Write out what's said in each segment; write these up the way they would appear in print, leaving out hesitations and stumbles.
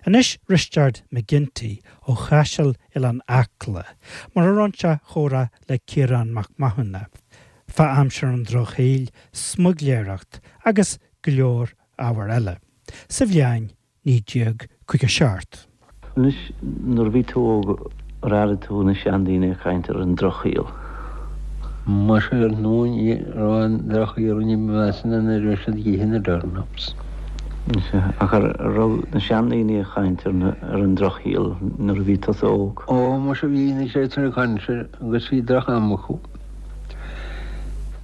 Anois Risteard McGinty ó Chaiseal Oileán Acla, mar a roinn sé a chomhrá le Ciarán Mac Mathúna, fá aimsir an Drochshaoil, smuigléireacht agus go leor ábhar eile, sa bhliain 1957. Anois, nuair a bhí tú óg, ar airigh tú na seandaoine ag caint ar an drochshaol? Muise ar ndóigh ní raibh an drochshaol ní ba mheasa ná nuair a bhí siad ag ithe na turnips. Sea, ach ar raibh na seandaoine ag caint ar an drochshaol nuair a bhí tusa óg? Ó, muise bhí na siadsan ag caint agus bhí droch-am acu.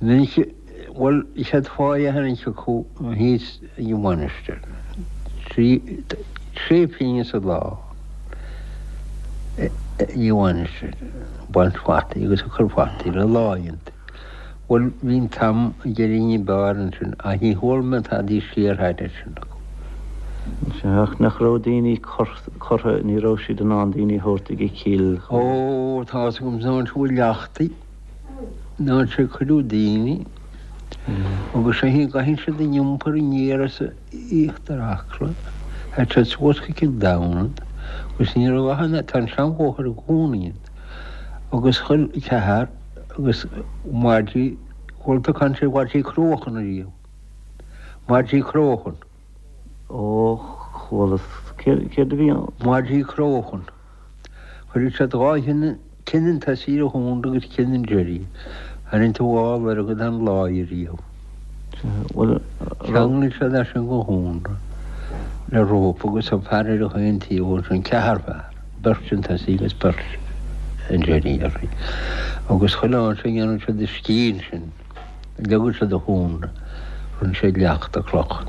Minic. Bhuel, is iad fáidh a tharraingt acu thíos ag an mhainistir. Sé pingin sa lá ag an mhainistir, ag baint fataí agus ag cur fataí le láí iontu. Bhuel, bhí an t-am ag éirí ní b'fhearr ansin, ach ní chuala mé tadaí siar thairis sin acu. Sea, ach nach raibh daoine curtha, ní raibh siad in ann daoine a thabhairt ag an chill. Ó, tá's agam, san áit a bhfuil leachtaí. Ná sé cuireadh daoine agus sé an gcaitheann siad an iompar aniar as íochtar Acla, théid siad suas go Cill Domhnaill agus ní raibh ach an, tá an seanbhóthar i gcónaí ann agus chuir ceathar agus maidí, chuala tú caint ar mhaidí cróchan ariamh, maidí cróchan. Ó, chualas, céard a bhí ann? Maidí cróchan. Chuireadh siad dhá thine, tine an tosaigh ar an chónra agus tine an deiridh. Tharraing tú dhá lorg den láí ariamh. Cheanglaigh siad é sin go chónra le rópa agus an fear ar chaon taobh ansin, ceathrar fear, beirt an tosaigh agus beirt an deiridh uirthi. Agus chuile áit a ndéanadh siad a scíth ansin. Leagadh siad an chónra, rinne siad leachta cloch.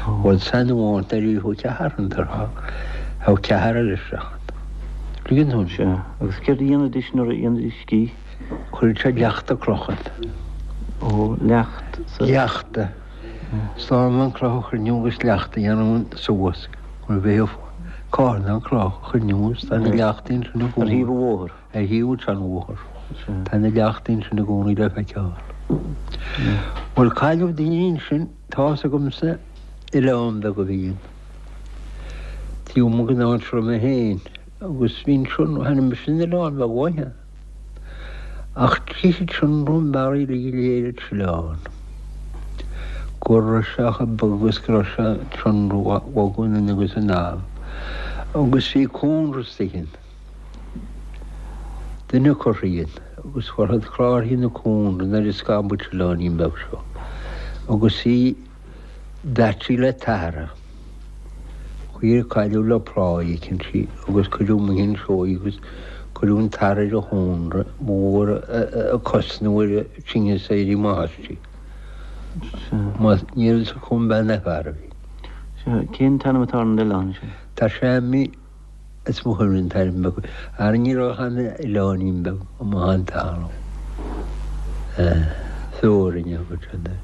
Bhuel san amháin ar iarradh ceathrar an tráth, thogh ceathrar eile isteach ann. Tuigeann tú? Sea. Agus céard a dhéanaidís nuair a dhéanaidís scíth? Chuireadh siad leachta cloch ann. Ó, leacht sa. Leachta. Slánlann cloch a chruinniú agus leacht a dhéanamh suas. Mar bheadh carnán cloch a chruinniú agus tá na leachtaí ansin i gcónaí. Ar thaobh an bhóthair. Ar thaobh an tseanbhóthair. Tá na leachtaí ansin i gcónaí le feiceáil. Bhuel, cailleadh daoine ansin, tá's agamsa, oileán beag a bhí ann. Taobh amuigh den áit a raibh mé féin. Agus bhí ansin, tháinig mise san oileán beag uaithe. Ach d'ith an sionradh an bearaí uilig go léir an t-oileán. Go raibh sé chomh bog agus go raibh sé an sionradh a bhogadh anonn agus anall. Agus bhí cónra istigh ann. Duine curtha ann agus chuir siad clárthaí na cónra nuair a scamhadh an t-oileáinín beag seo agus í daite le tarra. Chuir cailleadh le plá éicint í agus cuireadh amuigh anseo í agus cuireadh an tarra ar an chónra ba mhór a cosnú ar an tinneas éirí amach aisti. Má ní raibh fhios acu an bean ná fear a bhí. Sea, cén t-ainm atá ar an oileán sin? Tá sé imithe. Is mo chuimhne an t-ainm beag. Ara ní raibh ach an oileáinín beag amuigh an talamh. Feorainn a thug siad air.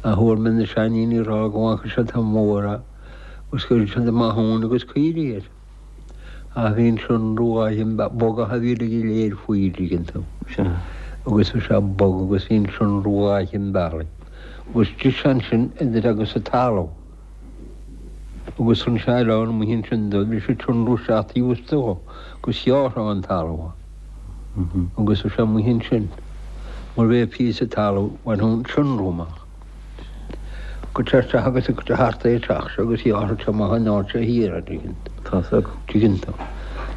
Ach chuala mé na seandaoine ag rá go bhfaca siad an mór agus go raibh siad amach ann agus caoirigh air. Ach bhí an sionradh an bogach a bhí uilig go léir faoi dtuigeann tú. Agus bhí sé bog agus bhí an sionradh an bealaigh. Agus d'ith sé ansin idir agus an talamh. Agus an oileán amuigh ansin do bhí sé tionrú isteach taobh istigh dó agus ghearrfá an talamh agus bhí sé amuigh ansin mar bheadh píosa talaimh bhainfeadh an sionrú amach. Go téir isteach agus go thart é teach seo agus ghearrfadh sé amach an áit seo thiar a dtuigeann Tá's agam. tuigeann tú. Tá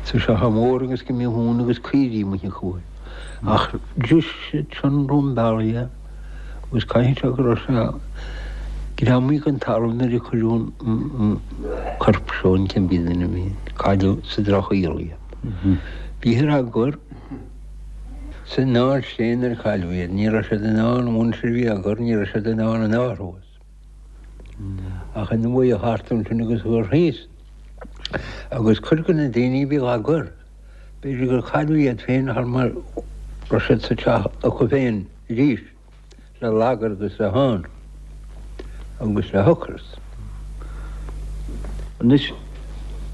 sé chomh mór agus go mbíodh uan agus caoirigh amuigh acu air. Ach d'ith an sionrú an bealaigh é. Agus caithfidh sé go raibh sé greamaithe den talamh nuair a cuireadh an corp seo an cibé duine a bhí ann. Cailleadh sa drochshaol iad. Bhíothar á gcur san áit féin ar cailleadh iad. Ní raibh siad in ann, an mhuintir a bhí á gcur, ní raibh siad in ann an athrú. Ach ina bhuíoch thart ansin agus gur thíos. Agus cuid de na daoine a bhí á gcur, b'fhéidir gur cailleadh iad féin thar mar raibh siad sa teach acu féin. arís le lagar agus le thonn agus le hocras. Anois,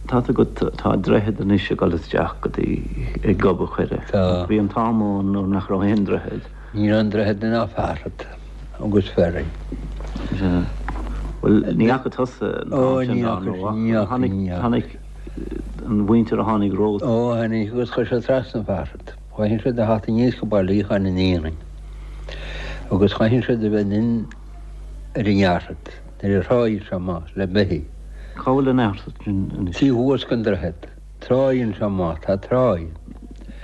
tá 's agat, tá droichead anois ag dul isteach go dtí ag Gob a' Choire. Tá. Bhí an t-am ann nuair nach raibh aon droichead. Ní raibh aon droichead ná fearthainn agus ferry. Sea. Bhuel, ní fhaca tusa an t-am sin dá ndóigh. Ní fhaca, ní fhaca. Tháinig an mhuintir a tháinig romhat. Ó, tháinig agus chuir siad trasna an fearsad. Chaithfeadh siad a theacht aníos go Baile Fhiacháin an aonaigh agus chaithfeadh siad a bheith anonn ar an Fhearsad nuair a thráigh sé amach le beithígh. Cá bhfuil an Fhearsad sin anois? Taobh thuas den droichead. Tráigh anseo amach, tá tráigh.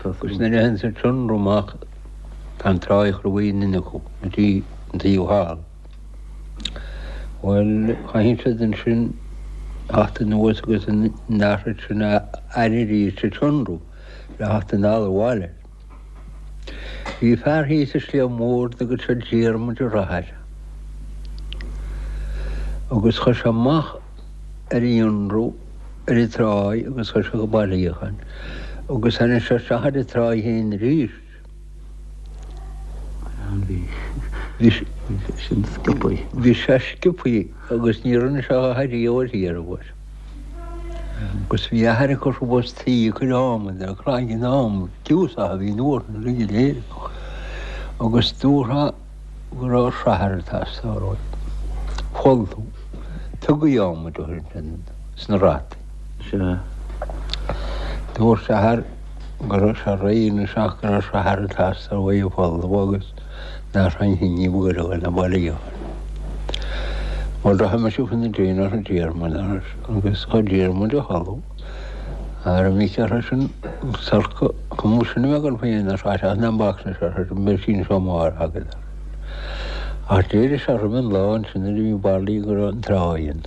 Agus nuair a théann siad sin amach tá an tráigh chur uaidh anonn acu go dtí an taobh thall. Bhuel, chaithfeadh siad ansin theacht anuas agus an fhearsad sin a fhaire arís sa tionrú le theacht anall abhaile. Bhí fear thíos sa Sliabh Mór a dtugadh siad Diarmuid Ó Rathaille. Agus chuir sé amach ar an ionrú ar an tráigh agus chuir sé go Baile Fhiacháin agus tháinig sé isteach ar an tráigh féin arís. Bhí sin sciobthaí. Bhí sé sciobthaí agus ní rinne sé a dhath ariamh uirthi ar an uair. Agus bhí athair ag cur suas tuí ag cur adhmaid ar chlainn adhmaid, giúsach a bhí in uair na uilig go léir. Agus dúrtha go raibh srathair ag teastáil uaidh. Folmhú. Tugaí adhmaid uirthi ansin sna rataí. Sea. Dúirt athair go raibh sé réidh anois ach go raibh srathair ag teastáil uaidh a folmhú agus nach raibh aon ní ba ghoire ná Baile Fhiacháin. Bhuel, do tháinig mise faoina déin arsa Diarmuid agus chuir Diarmuid a tholú. Ar an mhic arsa sin, sorca, chum sin a bheith agam féin ar feadh seachtaine an bacsa seo arsa sin, beidh sí anseo amárach agat arsa. Ach d'éirigh sé roimh an lá ansin nuair a bhí Baile go raibh an tráigh ann.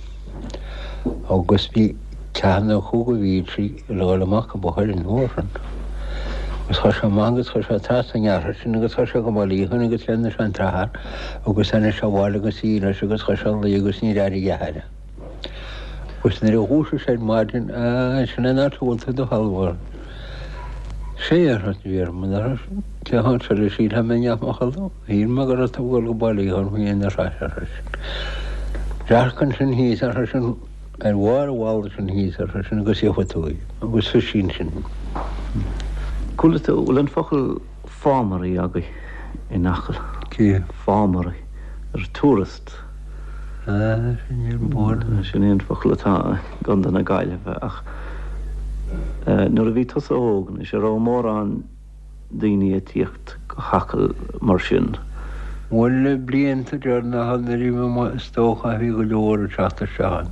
Agus bhí ceathanna acu go bhí sí le dhul amach go Bochair an uair sin. Agus chuir sé amach agus chuir sé trasna an fhearthainn sin agus chuir sé go Baile Fhiacháin agus cheannaigh sé an tsrathair agus tháinig sé abhaile agus í leis agus chuir sé a luí agus níor airigh a athair é. Agus nuair a dhúisigh sé ar maidin, Á, sin an áit a bhfuil tú i do chodladh. Sé arsa Diarmuid, arsa seisean, cé há seo le sílfeá mé i mo chodladh? Shíl mé go raibh tú ag dul go Baile Fhiacháin faoi aon ar ais. Dearc ansin thíos, arsa seisean, ar bharr an bhalla sin thíos, ar seisean, agus gheobhaidh tú í. Agus bhí sí ansin. Chuala tú, bhfuil an focal fámairí agaibh in Acaill? Cé? Fámairí. Ar tourist. Ah, sin é an bord. Sin é an focal atá i gContae na Gaillimhe ach nuair a bhí tusa óg anois, an raibh mórán daoine ag tíocht go hAcaill mar sin. Bhuel, na blianta deireanacha nuair a bhí mé amuigh is dócha bhí go leor ag teacht isteach ann.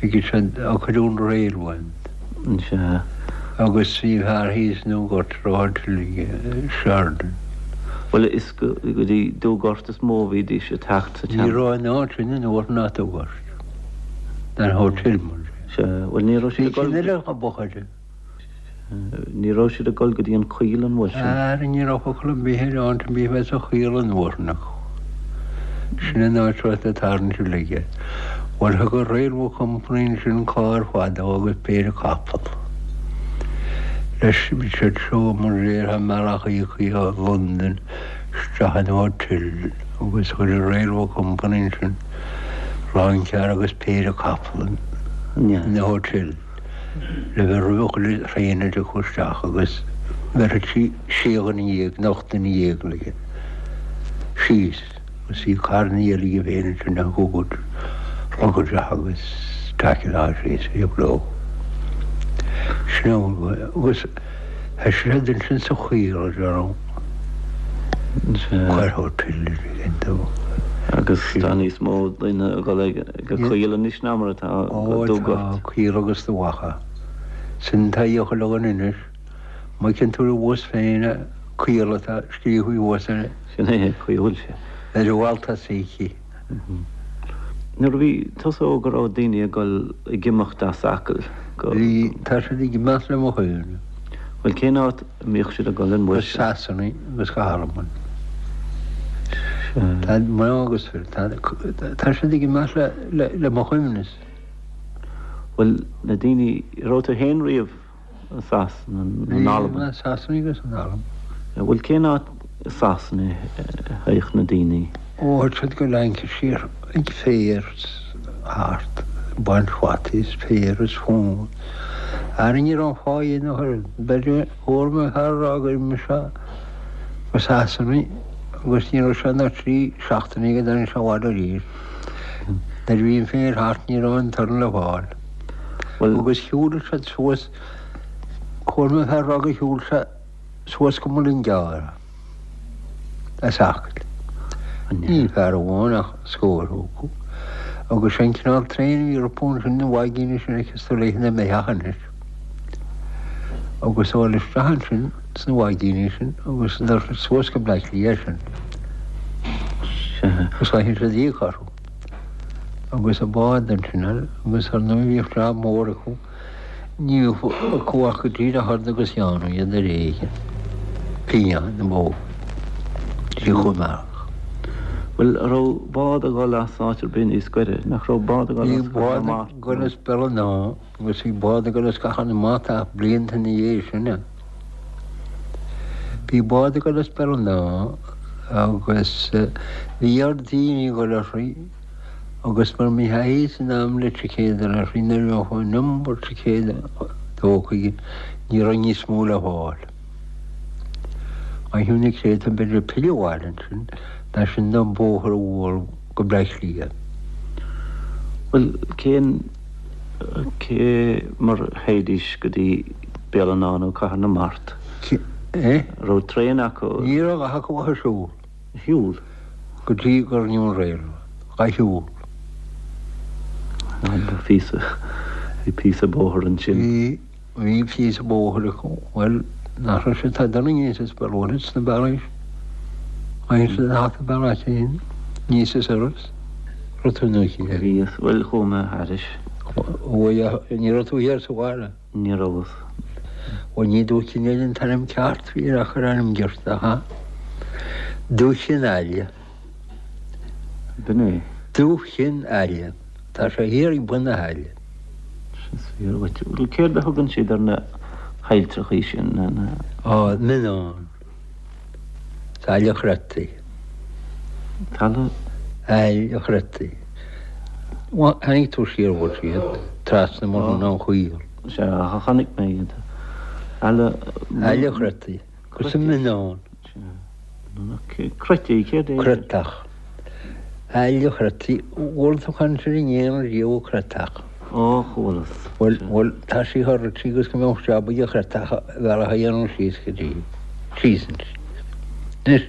Bhí siad ag cur an railway ann. Sea. Agus bhí fear thíos i nDúngort a raibh hotel aige, Sheridan. Bhuel, is go dtí Dúgort is mó a bhídís ag teacht sa Ní raibh an áit sin in uair ná Dúgort. An hotel mar sin. Sea, bhuel ní raibh siad ag dul. Bhí sin eile a b'fhochair. Ní raibh siad ag dul go dtí an Choill an uair sin. Ara ní raibh focal ar bith ar áit ar bith a bheith sa Choill an uair sin acu. Sin an áit a raibh na tarraingt uilig air. Bhuel thug an Railway Company ansin carr fada agus péire capall. Leis bhí siad seo mar déarfá i mBealach Íocaí ó Londain isteach in hotel agus chuir an Railway Company ansin lounge agus péire capall in hotel. le bheith roimh chuile thraein a dtiocfadh isteach agus bheirfeadh sí sé dhuine dhéag nó 18 duine léi síos agus bhí carranna eile aige féin ansin a thugadh rugaideach agus taicil síos bhíodh leo. Sin agus tá siad ansin sa Choill a déarfainn. Cuir hotel ar dó. Agus tá níos mó daoine ag dul ag an Choill anois ná mar atá go Dúgort. Ó tá, Coill agus Dumha Acha. Sin tá a chuile dhuine anois. Má fheiceann tú ar bhus féin Coill atá scríofa thuas air. Sin é, chaoi a bhfuil sé. Ar an bhfál tosaigh. Nuair a bhí tusa óg an raibh daoine ag dul ag imeacht as Acaill go. Bhí, tá siad ag imeacht le mo chuimhne. Bhuel cén áit a mbíodh siad ag dul an uair sin? Go Sasana agus go hAlbain. Tá mná agus fir, tá, tá siad ag imeacht le, le, le mo chuimhne. Bhuel na daoine, raibh tú féin riamh i Sasana nó in Albain? Bhí, i Sasana agus in Albain. Bhuel cén áit i Sasana a théadh na daoine? Ó théadh siad go Lancashire ag féar thart, ag baint fataí is féar is fonn. Ara ní raibh an fáidhe ina thoradh. B'fhéidir chuala mé fear ag rá gur imigh sé go Sasana agus ní raibh sé ná trí seachtainí go dtáinig sé abhaile arís. Nuair a bhí an féar thart ní raibh aon toradh le fáil. Agus shiúil siad suas, chuala mé fear ag rá gur shiúil sé suas go Mullingar as Acaill. Ní fear amháin ach scór acu. Agus sé an cineál traein a bhí rompu ansin, na vaigíní sin a fheiceas tú léithe na mbeathach anois. Agus dul isteach ansin sna vaigíní sin agus dul suas go Bleá Cliath sin. Agus chaithfeadh siad íoc orthu. Agus an bád ansin agus ar ndóigh bhíodh jab mór acu. Ní bheadh acu ach go díreach ard agus dhéanamh iad ar éigean. Fíon na mbó. Bhí chomh mearach. Bhuel, an raibh bád ag dul as áit ar bith níos gaire? Nach raibh bád ag dul as Cathair na Mart? Bhí bád ag dul as Béal an Átha agus bhí bád ag dul as Cathair na Mart ach blianta ina dhiaidh sin. Bhí bád ag dul as Béal an Átha agus bhí ar daoine ag dul uirthi. Agus mura mbeadh a fhios in am le ticéad a fháil nuair a bheadh an iomad ticéad tógtha ní raibh níos mó le fáil. Chaithfeadh na créatúir b'fhéidir pilleadh abhaile ansin, ná sin don bóthar a bhualadh go Bleá Cliath. Bhuel, cén, cé mar a théidís go dtí Béal an Átha nó Cathair na Mart? Cé, eh? Raibh traein acu? Ní raibh acu ach ag siúl. shiúl. Go dtí gur rinneadh an railway. Dhá shiúl. Bhí píosa, bhí píosa bóthair ansin. Bhí, bhí píosa bóthair acu. Bhuel, nach raibh siad ag dul aníos as Béal Mhuirthead sna bealaí sin. Tháinig siad thart an bealach féin, aníos as Iorras. Raibh tú nó thiar? Bhíos, bhuel, chuaigh mé thairis. Bhuel, ní raibh tú thiar sa bhaile? Ní rabhas. Bhuel, ní Dúiche Chinn Aille an t-ainm ceart a bhí air ach ar ainm giorta, ha? Dúiche Chinn Aille. B'in é. Dúiche Chinn Aille. Tá sé thiar ag bun na haille. Is fíor dhuit. Bhuel, céard a thugann siad ar na hailltreachaí sin, na, na. Á, Mionnán. Aill an Chreataigh. Talamh. Aill an Chreataigh. Tháinig tú siar bhfuil siad trasna mar an an Chaol. Sea, chonaic mé iad. Aill. Aill an Chreataigh. Agus an Mionnán. Sea. Creataigh, céard é? Creatach. Aill an Chreataigh. Bhfuil tú caint ar an éan riamh creatach? Ó, chualas. Bhuel, bhuel, tá sí thar rite agus go mbeadh jab ag an chreatach a bhealach a dhéanamh síos go dtí, síos ansin. Anois.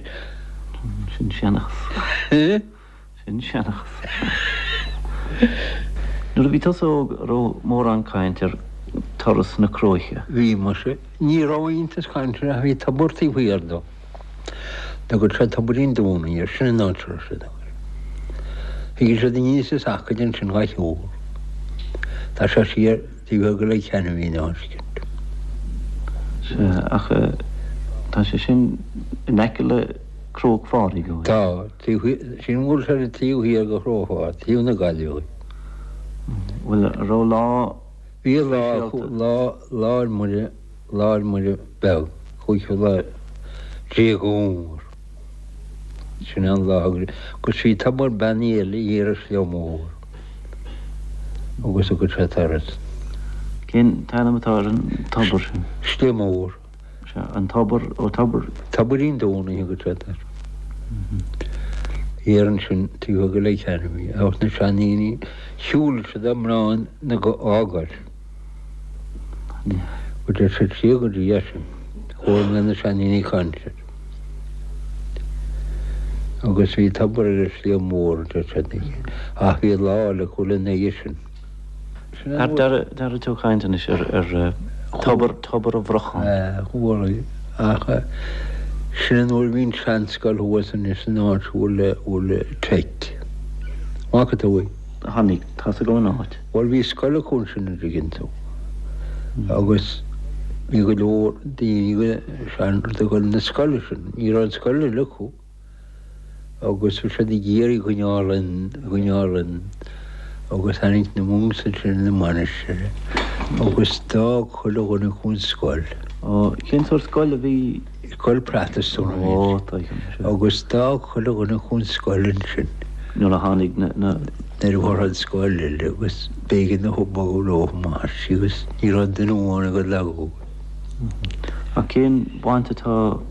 Sin seanchas. Sin seanchas. Nuair a bhí tusa óg, an raibh mórán caint ar turas na Cróiche? Bhí, muise. Ní raibh iontas cainte ach bhí tobar taobh thiar dó. Tugadh sé Tobairín Dúnaí air, sin an áit a raibh siad ag dul. Thigeadh siad aníos as Acaill ansin dhá shiúl. Tá sé siar taobh thiar de Leitir Ceanainn an áit sin. Sea, ach tá sé sin in aice le Cróc Phádraig, an bhfuil? Tá, taobh thiar, sin bhfuil sé ar taobh thiar de Chró Phádraig, taobh na Gaillimhe. Bhuel, an raibh lá Bhí lá acu, lá, Lá 'le Muire, Lá 'le Muire Beag, cúigiú lá déag Fhómhair. Sin an lá agus bhí tobar beannaithe eile thiar ar Shliabh Mór agus thugad sé turas. Cén t-ainm atá ar an tobar sin? Sliabh Mór. Sea, an tobar, ó tobar. Tobairín Dúnaí a thugad siad air. Thiar ansin taobh thiar de Leitir Ceanainn ach na seandaoine shiúil siad a mná na dhá gcois. Go dtéadh siad siar go dtí é sin. Chuala mé na seandaoine ag caint air. Agus bhí tobar ar an Sliabh Mór a deir siad ach bhí lá eile acu lena dhiaidh sin. Ar d'airigh tú caint anois ar tobar, tobar an Bhrocháin? Chuala, ach sin an uair a bhí an tseanscoil thuas anois san áit a bhfuil, a bhfuil Tech. An bhfaca tú í? Chonaic, tá's agam an áit. Bhuel bhí scoil acu ansin an dtuigeann tú agus bhí go leor daoine sean ag dul na scoile sin, ní raibh an scoil eile acu. agus bhí siad ag iarraidh coinneáil an, coinneáil an, agus tháinig na monks ansin ina mainistir agus d'fhág chuile dhuine acu an scoil. Ó, cén sórt scoil a bhí? Scoil Protastúnach a bhí Ó, tuigim, sea. Agus d'fhág chuile dhuine acu an scoil ansin. Nuair a tháinig na, na. Nuair a fuair an scoil eile agus b'éigean dóibh bogadh leo amach agus ní raibh duine amháin ag dul acu. Ach cén bhaint atá.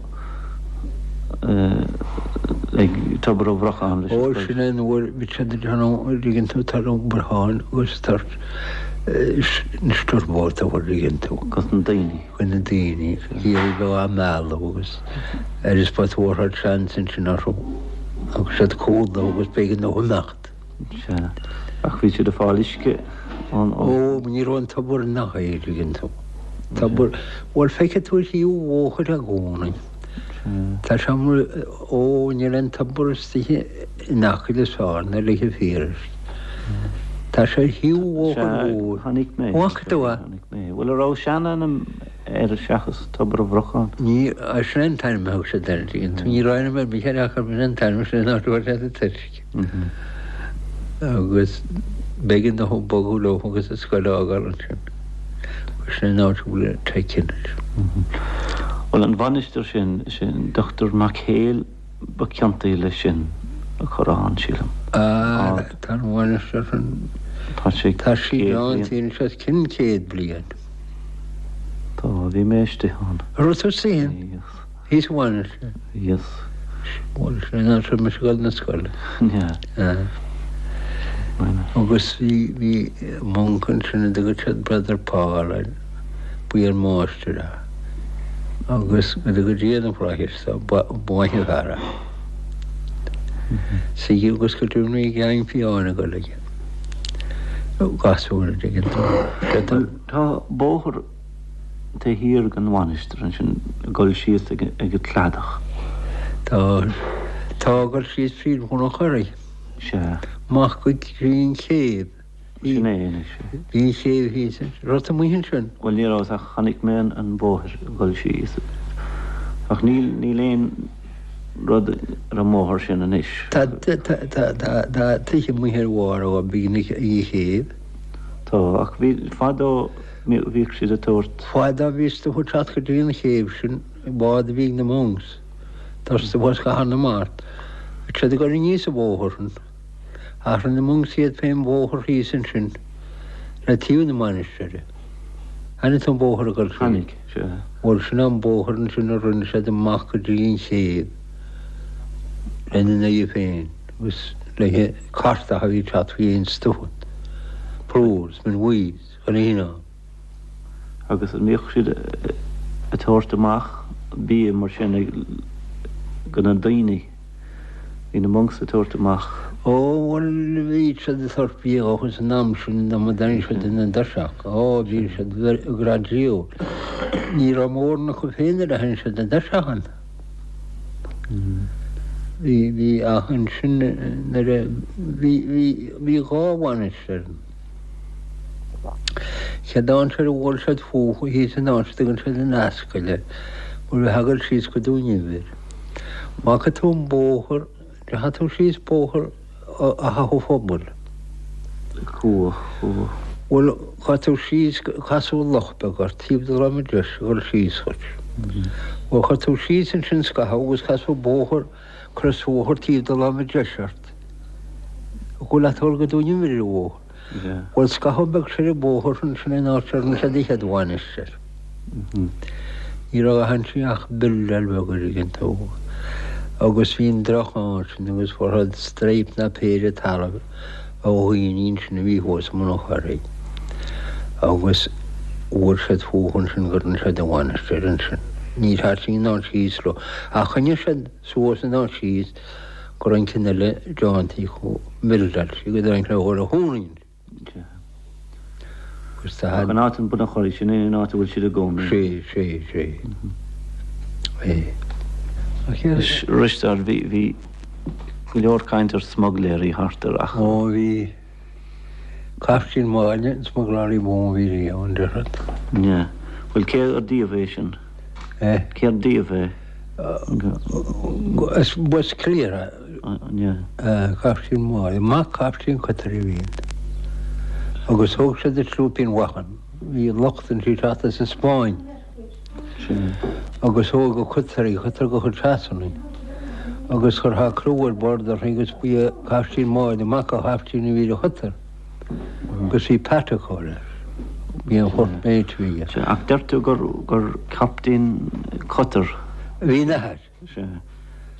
Ag Tobar an Bhrocháin leis an Ó, sin é an uair bhí siad ag déanamh, an dtuigeann tú, tar an Bhrocháin agus tar na stiúrbóta an dtuigeann tú. Gus na daoine. Go na daoine, ag iarraidh bheith á mealladh agus ar is ba tabharfad seans ansin orthu agus siad cúlú agus b'éigean dóibh imeacht. Sea. Ach bhí siad ag fáil uisce ón. Ó, ní raibh an tobar nach é, an dtuigeann tú. Tobar, bhuel feicfidh tú ar thaobh an bhóthair i gcónaí. Tá sé mar, ó, níl aon tobar istigh in Acaill is fearr ná le fíoruisce. Tá sé ar thaobh an bhóthair mhóir. Sea, chonaic mé. Bhfaca tú é? Chonaic mé. Bhuel, an raibh seanainm air seachas Tobar an Bhrocháin? Ní, sin é an t-ainm a thug siad air, tuigeann tú. Ní raibh ainm ar bith air ach sin an t-ainm, sin an áit a bhfuair siad an t-uisce. Agus b'éigean dóibh bogadh leo agus an scoil a fhágáil ansin. Agus sin an áit a bhfuil an Teic anois. Bhuel, an mhainistir sin, sin Dochtúir Mac Héil ba ciontaí leis sin a chur ann, sílim. Ah, tá an mhainistir sin, Tá sé tá sí ann anois os cionn 100 bliain. Tá, bhí mé istigh ann. Raibh tú istigh ann? Bhíos. Thíos sa mhainistir. Bhíos. Bhuel, sin an áit a raibh mise ag dul na scoile. Yeah. Agus bhí, bhí monk ansin a dtugadh siad Brother Paul air, ba é an máistir é. Agus go dtuga Dia na flaithis dó, ba, ba mhaith an fear é. Sea, agus go deimhin bhí geaing fiáin ag dul aige. Gasúr, an dtuigeann tú. Tá bóthar taobh thiar den mhainistir ansin ag dul síos ag an cladach. Tá, tá ag dul síos fríd Bhun an Churraigh. Sea. Amach go dtí an chéibh. Sin é anois é. Bhí an chéibh thíos ansin. Raibh tú amuigh ansin? Bhuel ní rabhas ach chonaic mé an bóthar ag dul síos. Ach níl, níl aon rud ar an mbóthar sin anois. Tá, tá, tá, tá, tá tithe amuigh ar bharr ó beagnach ag an chéibh. Tá, ach bhí, fadó, Bhíodh siad ag tabhairt. Fadó bhí stuif ag teacht go dtí an chéibh sin, bád a bhí ag na monks, tá stuif as Cathair na Mart, bhí siad ag dul aníos an bóthar sin. Ach rinne na monks iad féin bóthar thíos ansin le taobh na mainistire. Chonaic tú an bóthar ag dul síos? Chonaic, sea. Bhuel, sin an bóthar ansin a rinne siad amach go dtí an chéibh lena n-aghaidh féin agus le cartacha a bhí ag teacht faoi aon stuif, plúr is min bhuí. Chun a ann. Agus an mbíodh siad ag tabhairt amach bia mar sin go na daoine? Bhí na monks ag tabhairt amach. Ó, bhuel, bhí siad ag tabhairt bia dhóibh san am sin dá mba dtáinig siad ina dtuirseach. Ó, bhí siad gradual. Ní raibh mórán acu féin nuair a tháinig siad i dtuirseach ann. Bhí, bhí, ach ansin nuair a, bhí, bhí, bhí dhá mhainistir ann. Chéad áit ar bhuail siad fúthu thíos in áit a dtugann siad an Ascaill air, mar bheifeá ag dul síos go Dún Inbhir. Bhfaca tú an bóthar, ndeachaigh tú síos bóthar Átha Phobail? Chuaigh, chuaigh. Bhuel, chuaigh tú síos, casadh loch beag ort, taobh de láimhe deis ag dul síos dhuit. Bhuel, chuaigh tú síos ansin scaitheamh agus casadh bóthar, crosbhóthar taobh de láimhe deis ort. Ag dul leat go Dún Inbhir ar an bhóthar. Bhuel, scaitheamh beag soir an bóthar ansin in áit a rinne siad an chéad mhainistir. Ní raibh ach ansin ach buildeáil bheag an dtuigeann tú. Agus bhí an droch ansin agus fuair siad straidhp ná péire talaimh ó dhaoine ansin a bhí thuas i mBun an Churraigh. Agus bhuail siad fúthu ansin go rinne siad an mhainistir ansin. Níor thaitin an áit thíos leo. Ach choinnigh siad suas an áit thíos go raibh an ceann eile déanta acu, buildeáilte go dtáinig le dhul a chónaí ann. Agus tá. Ach an áit in Bun an Churraigh, sin é an áit a bhfuil siad i gcónaí. Sé, sé, sé. É. Ach Anois, Risteárd, bhí, bhí go leor caint ar smuigléirí thart ar Acaill. Ó, bhí. Caiftín Máille an smuglálaí ba mhó a bhí riamh, an déarfad. Yeah. Bhuel, cé ar díobh é sin? Eh? Cé ar díobh é? As b'as Cliar é. Yeah. Caiftín Máille. Mac Caiftín Cotter a bhí ann. Agus thóg siad an slúipín Mhachain. Bhí lucht ansin ag teacht as an Spáinn. Agus thóg an cotter í, cotter de chuid Shasana í. Agus chuir sé criú ar bord uirthi agus ba é Caiftín Máille, mac an chaiftín a bhí ar an chotter. Agus bhí peata acu leis. Bhí an first mate a bhí aige. Sea, ach deir tú gur gur captaen cotter. Bhí ina athair. Sea.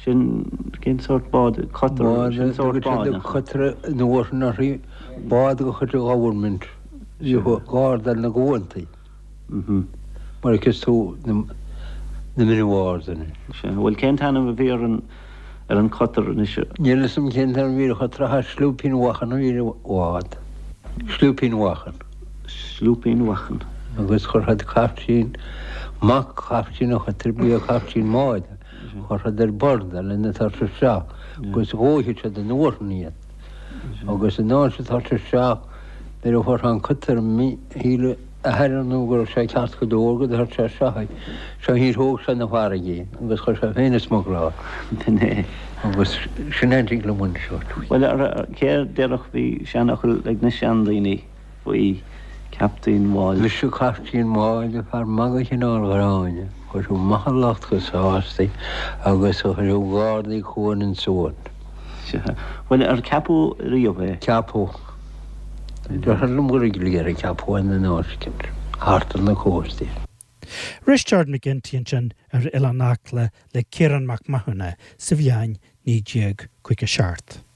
Sin, cén sórt bád, cutter, sin sórt bád, nach ea? Cutter an uair sin uirthi, bád de chuid an Government, bhíodh gardáil na gcuantaí, mar a fheiceas tú na mine wars anois. Sea, bhuel cén t-ainm a bhí ar an, ar an cutter anois? Níl fhios a'm cén t-ainm a bhí ar an chutter ach Slúipín Mhachan a bhí ar an bhád. Slúipín Mhachan. Slúipín Mhachan. Agus chuir siad caiftín, mac chaiftín an chutter, ba é caiftín an bháid. Chuir siad ar bord é lena tabhairt isteach agus dhóigh siad an uair sin iad. Agus an uair sin tabhairt isteach nuair a fuair sé an cutter shíl a athair ar ndóigh go raibh sé ceart go leor go dtabhairt sé isteach é. Seo níor thóg sé na farraige é agus chuir sé féin ag smugláil. B'in é. Agus sin é an tig liom anseo. Bhuel, cé a déarfadh bhí seanfhocal ag na seandaoine. faoi Captaen Mháille. Mise Caiftín Máille, fear maith de chineál Ghráinne, chuirfeadh maith an lucht go sásta agus a chuirfeadh gardaí cuain an suan. Sea. Bhuel, ar ceapadh riamh é? Ceapadh. Deirtear liom gur ag ar a ceapadh é in áit thart ar na cóstaí. Risteard McGinty ansin ar Oileán Acla le Ciarán Mac Mathúna sa bhliain 1957.